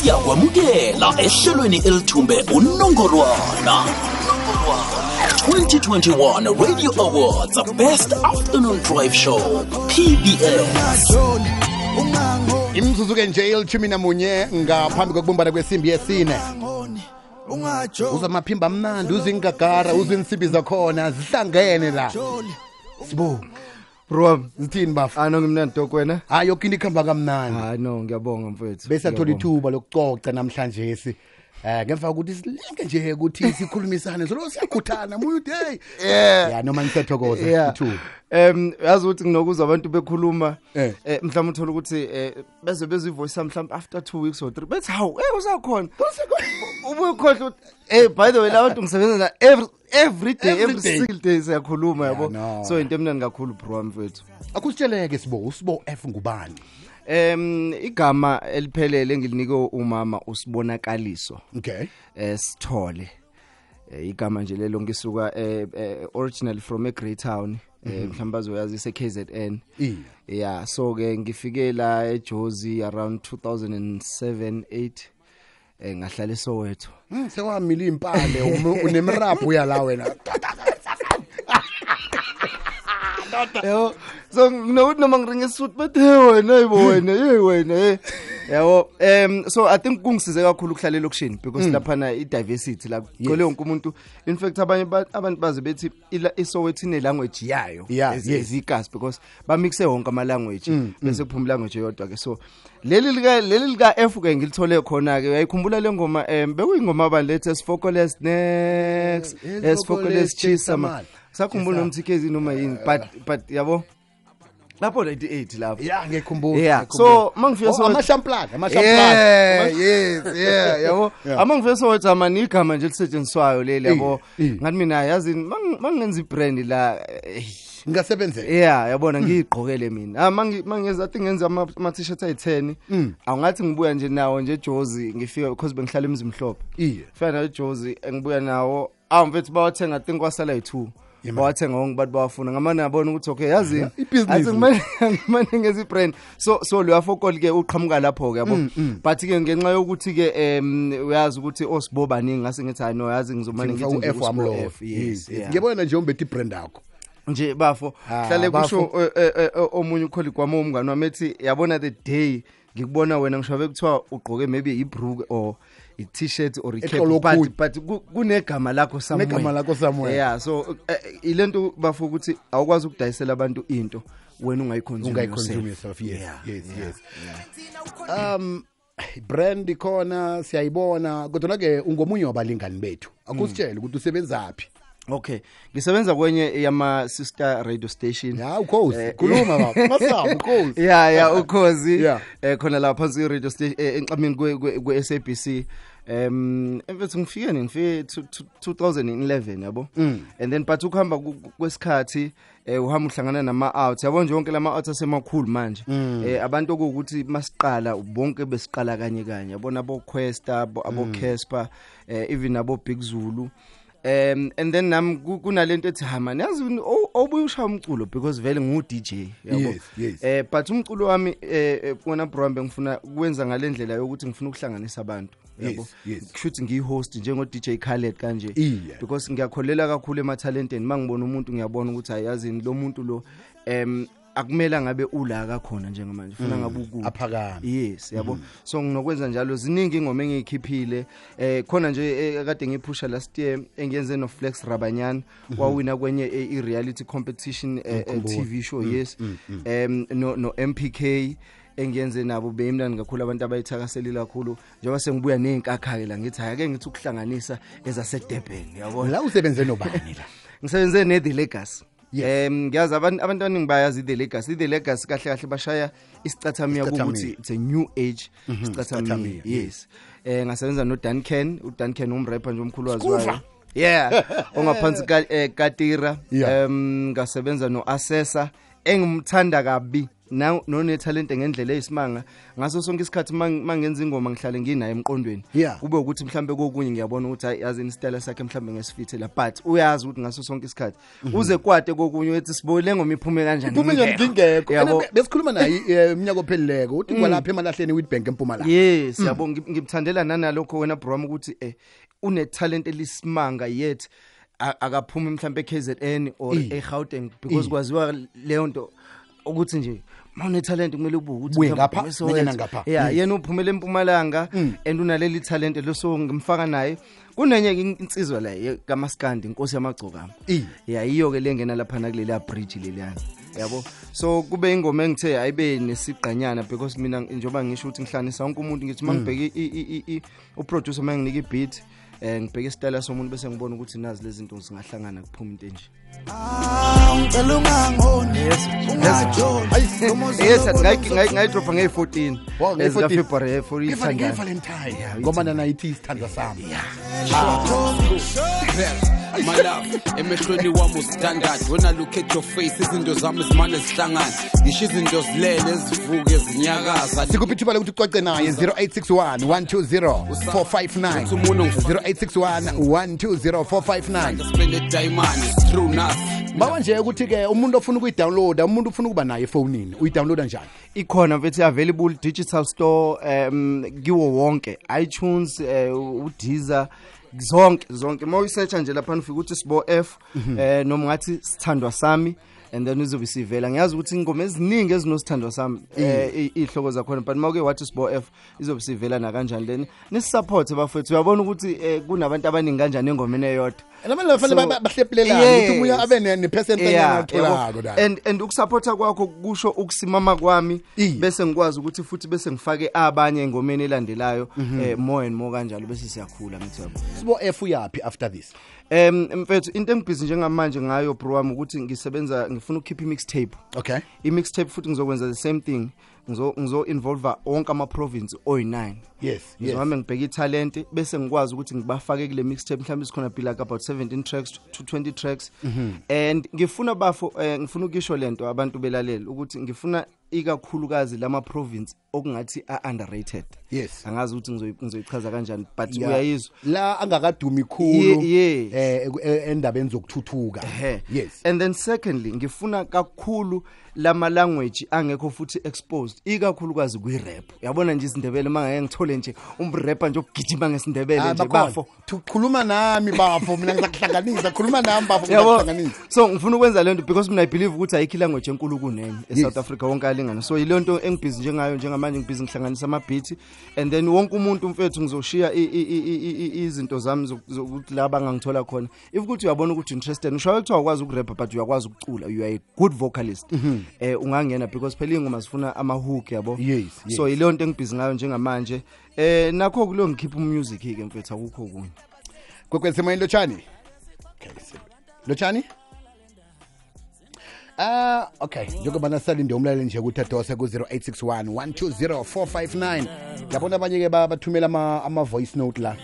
Siyakwamukela ehlelweni elithumbe unongorwana 2021 Radio Awards Best Afternoon Drive Show PBS. Imzuzu-ke nje 11 ngaphambi kokubumbana kwesimbi yesine. Uzwa amaphimbo amnandi, uzwa ingagara, uzwa insimbi zakhona zihlangene la. Sibu. Bro, zithini bafu? Ah no, ngimnandi dok wena. Hayi, yoke into ikhamba kamnandi. Hayi no, ngiyabonga mfethu. Bese athola ithuba lokucoca namhlanje si. Ngemva kokuthi silinke nje ukuthi sikhulumisane, solo siyakhuthana muyu day. Yeah, noma nisathokoza ithuba. Yazi ukuthi nginokuzwa abantu bekhuluma mhlawumbe uthola ukuthi beze bezwe ivoice mhlawumbe after 2 weeks or 3 bethi hawu usakhona. Ubuye ukhohle ukuthi by the way la bantu ngisebenza na every day, every single day siyakhuluma yabo. So into emnandi kakhulu bro mfethu. Akusitsheleke Sibo, uSibo F ngubani? Igama eliphelele engilinike umama uSibonakaliso. Okay. Sithole. Igama nje lelo ngisuka originally from a Grey Town, mhlawumbe bazoyazi ise KZN. Yeah, so ke ngifike la eJozi around 2007 8 ngahlala eSoweto. Sewamila impande unemraphu uya la wena. Yabo, so nginokuthi noma ngiringe isuthu bathi hey wena, hey wena, hey wena, yabo. So I think kungisize kakhulu ukuhlala elokishini because laphana i diversity la kugcwele wonke umuntu. In fact abanye abantu baze bethi iSoweto ine language yayo ezikasi because bamixe wonke ama language bese kuphuma language eyodwa ke. So leli lika F ke ngilithole khona ke. Uyayikhumbula le ngoma bekuyingoma abalethe Sifokoles next Sifokoles Chisama. Sakhumbula nomthikezi noma yini but yabo lapho 98 lapho. Yeah, ngiyakhumbula. Yeah, so mangifika so amashamplaka. Yeah, yes, yeah, yabo. Amangifika so wathi amani igama nje lisetshenziswayo leli yabo. Ngathi mina yazi mangenza ibrand la ngingasebenzela. Yeah, yabona ngiyigqokele mina. Mangenza I think ngenza ama t-shirt ayi10. Awungathi ngibuya nje nawo nje eJozi ngifika because bengihlala eMzimhlophe. Fika nawo eJozi ngibuya nawo. Mfethu bawathenga I think kwasala yi2. Bawathenga wonke abantu bawafuna ngamane yabona ukuthi okay yazi athi ngimane ngezi brand so lo yafokol ke uqhamuka lapho ke yabo. But ke ngenxa yokuthi ke uyazi ukuthi oSibo baningi ngase ngithi hayi no yazi ngizomane ngithi F wami lo. Yes, ngiyabona nje umbethe ibrand yakho nje bafo hlale kusho omunye ucolleague wami umngani wami ethi yabona the day ngikubona wena ngisho bekuthiwa ugqoke maybe ibrook or i t-shirt or i cap but kunegama lakho somewhere. Negama lakho somewhere. Yeah, so ilento bafo ukuthi awukwazi ukudayisela abantu into wena ungayiconsume yourself. Yes, yeah, yes, yeah, yes. Yeah. Brand ikhona siyayibona kodwa ke ungomunye wabalingani bethu. Akusitshele ukuthi usebenzaphi. Okay, ngisebenza kwenye yama sister radio station. Yeah, ukhozi. Khuluma baba. Masaba ukhozi. Yeah, ukhozi. Khona la phansi radio station enqamini kwe SABC. Mfethu ngifike 2011 yabo. And then but ukuhamba kwesikhathi uhamba uhlangana nama out. Yabo nje yonke lama out asemakhulu manje. Abantu okuwukuthi masiqala bonke besiqala kanye kanye. Yabona abo Questa, abo Casper, even abo Big Zulu. And then nam kunalento ethi ha man yazi obuye ushaya umculo because vele ngu DJ yabo. Yes, yes. But umculo wami wena bro ngifuna ukwenza ngalendlela yokuthi ngifuna ukuhlanganisa abantu yabo. Kushuthi ngiyihost njengo DJ Khaled kanje because ngiyakholela kakhulu ematalenteni. Mangibona umuntu ngiyabona ukuthi ayazini lo muntu lo akumela ngabe ula kakhona njengamanje ufuna ngabe ukude aphakame. Yes, yabo. So nginokwenza njalo ziningi ingoma engiyikhiphile khona nje kade ngiphusha last year engiyenze no Flex Rabanyana wawina kwenye i reality competition TV show. Yes. No MPK engiyenze nabo beyimnandi kakhulu abantu abayithakaselile kakhulu njengoba sengibuya nezinkakha ke la ngithi hayi ake ngithi ukuhlanganisa ezase Durban yabo. La usebenze nobani la? Ngisebenze ne The Legacy. Ngiyazi abantu abaningi bayazi The Legacy. The Legacy kahle kahle bashaya isicathamiya ukuthi it's a new age isicathamiya. Yes. Ngasebenza no Duncan, uDuncan umrapper nje omkhulu waziwayo. Yeah, ongaphansi ka Katira. Ngasebenza no Assessor Engimthanda kabi none talent ngendlela eyisimanga. Ngaso sonke isikhathi mangenza ingoma ngihlale nginaye emqondweni. Kube ukuthi mhlambe kokunye ngiyabona ukuthi hayi, yazi isitayela sakhe mhlambe ngesifithela, but uyazi ukuthi ngaso sonke isikhathi uze kwate kokunye uthi sibole ngoma iphume kanjani. Iphume ngingekho. Besikhuluma naye iminyaka ophelileko uthi kwalapha emalahleni Witbank eMpumalanga. Yes, yabo, ngimthandela nanalokho wena bro ukuthi une talent elisimanga, yet akaphumi mhlambe eKZN or eGauteng, because kwaziwa leyo nto ukuthi nje mawune talent kumele ubuke ukuthi ngapha nanyana ngapha. Yeah, yena uphumele eMpumalanga and unaleli talent leso, ngimfaka naye. Kunenye insizwa la kaMaskandi, inkosi yamagcokama. Yeah, iyo ke lengena lapha na kuleli bridge leliyana, yabo. So kube ingoma engithe ayibe nesigqanyana, because mina njengoba ngisho ukuthi ngihlanisa wonke umuntu, ngithi mangibheke uproducer manginika ibeat, ngibheke isitayela somuntu bese ngibona ukuthi nazi lezi zinto zingahlangana kuphuma into enje. Yes, ngayidropa nge-14 ezika February for ithanda Valentine, ngoba nana ithi isithandwa sami. My love, emehlweni wami standard. When I look at your face, izinto zami zimane zihlangana, ngisho izinto zilele ezivuke ezinyakaza. Sikuphi ithuba lokuthi uxoxe naye? 0861 120 459, 0861 120 459. Spend a diamond, it's true now. Bawa nje ukuthi ke umuntu ofuna ukuyidownloada, umuntu ufuna ukuba naye efonini, uyidownloada njani? Ikhona mfethu, available digital store, kiwo wonke, iTunes, uDeezer, zonke zonke. Uma uyisearcha nje lapha ufika ukuthi Sibo F, noma ngathi sithandwa sami, and then uzobe sivela. Ngiyazi ukuthi ingoma eziningi ezinosithandwa sami ihloko zakhona, but mawuke wathi Sibo F izobe sivela na kanjani. Then nisupport bafethu, uyabona ukuthi kunabantu abaningi kanjani engomeni eyodwa. Abantu bafanele bahlephulelane ukuthi umuntu abe ne percent engatholako la. And ukusupporta kwakho kusho ukusimama kwami, bese ngikwazi ukuthi futhi bese ngifake abanye engomeni elandelayo, more and more kanjalo, bese siyakhula ngithi yabo. Sibo F uyapi after this? Mfethu, into engibhizi njengamanje ngayo bro wami ukuthi ngisebenza, ngifuna ukukhipha i-mixtape. Okay. I-mixtape futhi ngizokwenza the same thing. Ngizo involve wonke ama province oyi9. Yes. Ngizohamba ngibheke italent bese ngikwazi ukuthi ngibafake kule mixtape, mhlawumbe sikhona be like about 17 tracks to 20 tracks. And ngifuna bafo, ngifuna ukisho lento abantu belalela ukuthi ngifuna ikakhulukazi lama province okungathi a underrated. Yes. Angazi ukuthi ngizoyichaza kanjani, but uyayizwa la angakadumi khulu endabeni zokuthuthuka. Yes. And then secondly, ngifuna kakhulu lama language angekho futhi exposed, ikakhulukazi kwi rap. Uyabona nje isiNdebele, mangeke ngithole nje umrapper nje ogijima ngesiNdebele nje bafo. Khuluma nami bafo, mina ngizakuhlanganisa, khuluma nami bafo ngizakuhlanganisa. So ngifuna ukwenza lento because mina I believe ukuthi ayikho language enkulu kunenye eSouth Africa, wonke alingana. So ile nto engibhizi njengayo njengamanje, ngibhizi ngihlanganisa ama beat, and then wonke umuntu mfethu ngizoshiya izinto zami zokuthi la bangangithola khona. If ukuthi uyabona ukuthi interested, ngisho kuthiwa ukwazi ukurap but uyakwazi ukucula, you are a good vocalist, ungangena, because phela ingoma zifuna ama hook, yabo. Yes. So ile nto engibhizi ngayo njengamanje, nakho kulo ngikhipha umusic ke mfethu, akukho kunye. Kwekwezi moyeni, lotshani. Okay, lotshani. Okay, njengoba nasalinde umlaleli nje ukuthi adose ku 0861 120 459. Yabona abanye ke bathumela ama voice note la.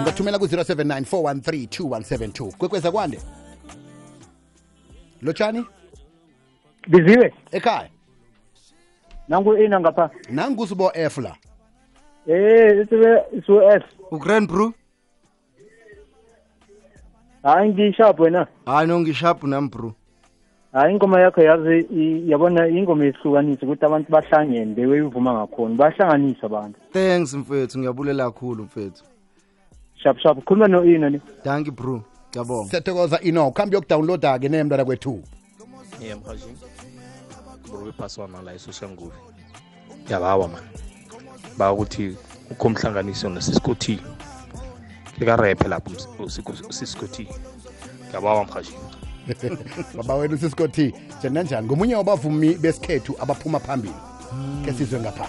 Ungathumela ku 079 413 2172. Kwekweza kwande. Lotshani? Biziwe. Ekhaya. Nangu ina ngapha. Nangu Sibo F la. Sibo F. Ugrand bro. Hayi ngisharp wena. Hayi no ngisharp nami bro. Hayi ingoma yakho yazi, yabona ingoma ehlukanisa ukuthi abantu bahlangene bewuyivuma ngakhona, bahlanganisa abantu. Thanks mfethu, ngiyabulela kakhulu mfethu. Sharp sharp, khuluma no Ino ni. Thank you bro. Ngiyabonga. Siyathokoza Ino, khambi yokudownloada ke nemntwana kwethu. Yeah mhaji. Bro iphaswana la eSoshanguve. Yabawa man. Ba ukuthi ukhomhlanganiso noSisco T. Ke rap lapho uSisco T. Yabawa mhaji. Baba wena uSisco T, njani? Ngomunye wabavumi besikhethu abaphuma phambili. Ke sizwe ngapha.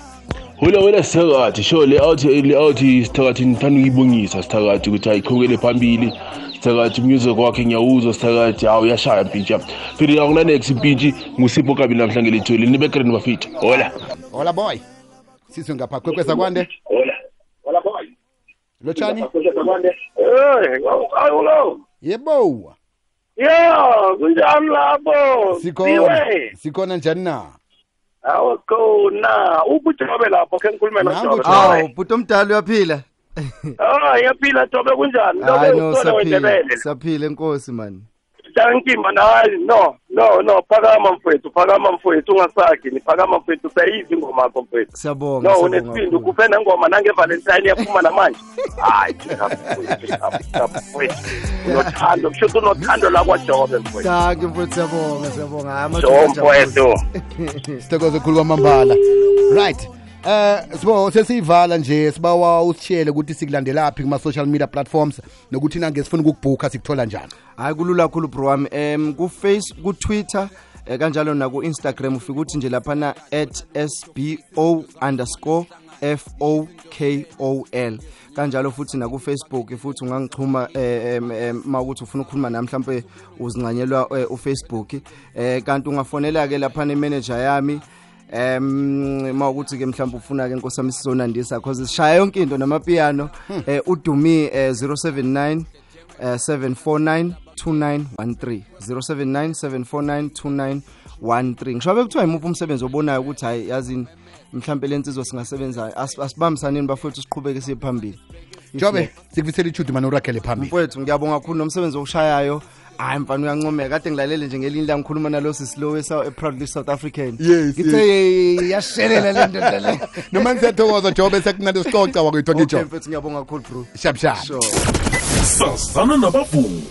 Hula wena sithakathi, sho le out sithakathi, ngithanda ukuyibongisa sithakathi ukuthi ayiqhubekele phambili. Sithakathi music wakhe ngiyawuzwa sithakathi, hawu uyashaya mpintshi. Phela akuna next mpintshi nguSipho Kabi namhlanje lethuli nibe grand bafethu. Hola. Hola boy. Sizwe ngapha kwekweza kwande. Hola. Hola boy. Lotshani? Eh, hello. Yebo. Yo, kunjani lapho? Sikhona. Sikhona njani na? Awu khona. UbuJobe lapho ke ngikhulume noJobe. Awu, bhuti omdala uyaphila? Ah, yaphila Jobe, kunjani? Hayi no, saphila. Saphila enkosi man. Thank you man. Hayi no, no, no, phakama mfowethu, phakama mfowethu, ungasakhi, phakama mfowethu, sayizi ingoma yakho mfowethu. Siyabonga. No, unesibindi ukuphe nengoma nange Valentine yaphuma namanje. Hayi, mfowethu. Unothando, kusho ukuthi unothando la kwaJobe mfowethu. Thank you mfowethu, siyabonga, siyabonga. Hayi amadoda mfowethu. Sithokoze khulu kwamambala. Right. Sibo sesivala nje, sibawa usitshele ukuthi sikulandelaphi kuma social media platforms nokuthi nange sifuna ukukubhuka sikuthola njani. Hayi kulula kakhulu bro wami, ku Face, ku Twitter, kanjalo na ku Instagram ufika ukuthi nje laphana @sbo_fokol, kanjalo futhi na ku Facebook futhi ungangixhuma mawukuthi ufuna ukukhuluma nami mhlambe uzincanyelwa uFacebook, kanti ungafonela ke laphana imanager yami mawukuthi ke mhlawumbe ufuna ke Nkosi yami sizonandisa because sishaya yonke into namapiano, uDumi 079 749 2913, 079 749 2913. Ngisho bekuthiwa imuphi umsebenzi obonayo ukuthi hayi yazini mhlawumbe lensizwa singasebenza, asibambisaneni bafowethu siqhubeke siye phambili. Jobe, sikufisela ithudu manje uragele phambili. Mfowethu ngiyabonga kakhulu nomsebenzi okushayayo. Hayi mfana uyancomeka, kade ngilalele nje ngelinye la ngikhuluma nalo sisi lo proudly South African. Ngithe yashelela le ndoda le. Noma ngisiyathokoza Jobe, sekunande sixoxa wakwethu ngijo. Okay mfethu ngiyabonga kakhulu bro. Shap shap. Sazana nabavumi.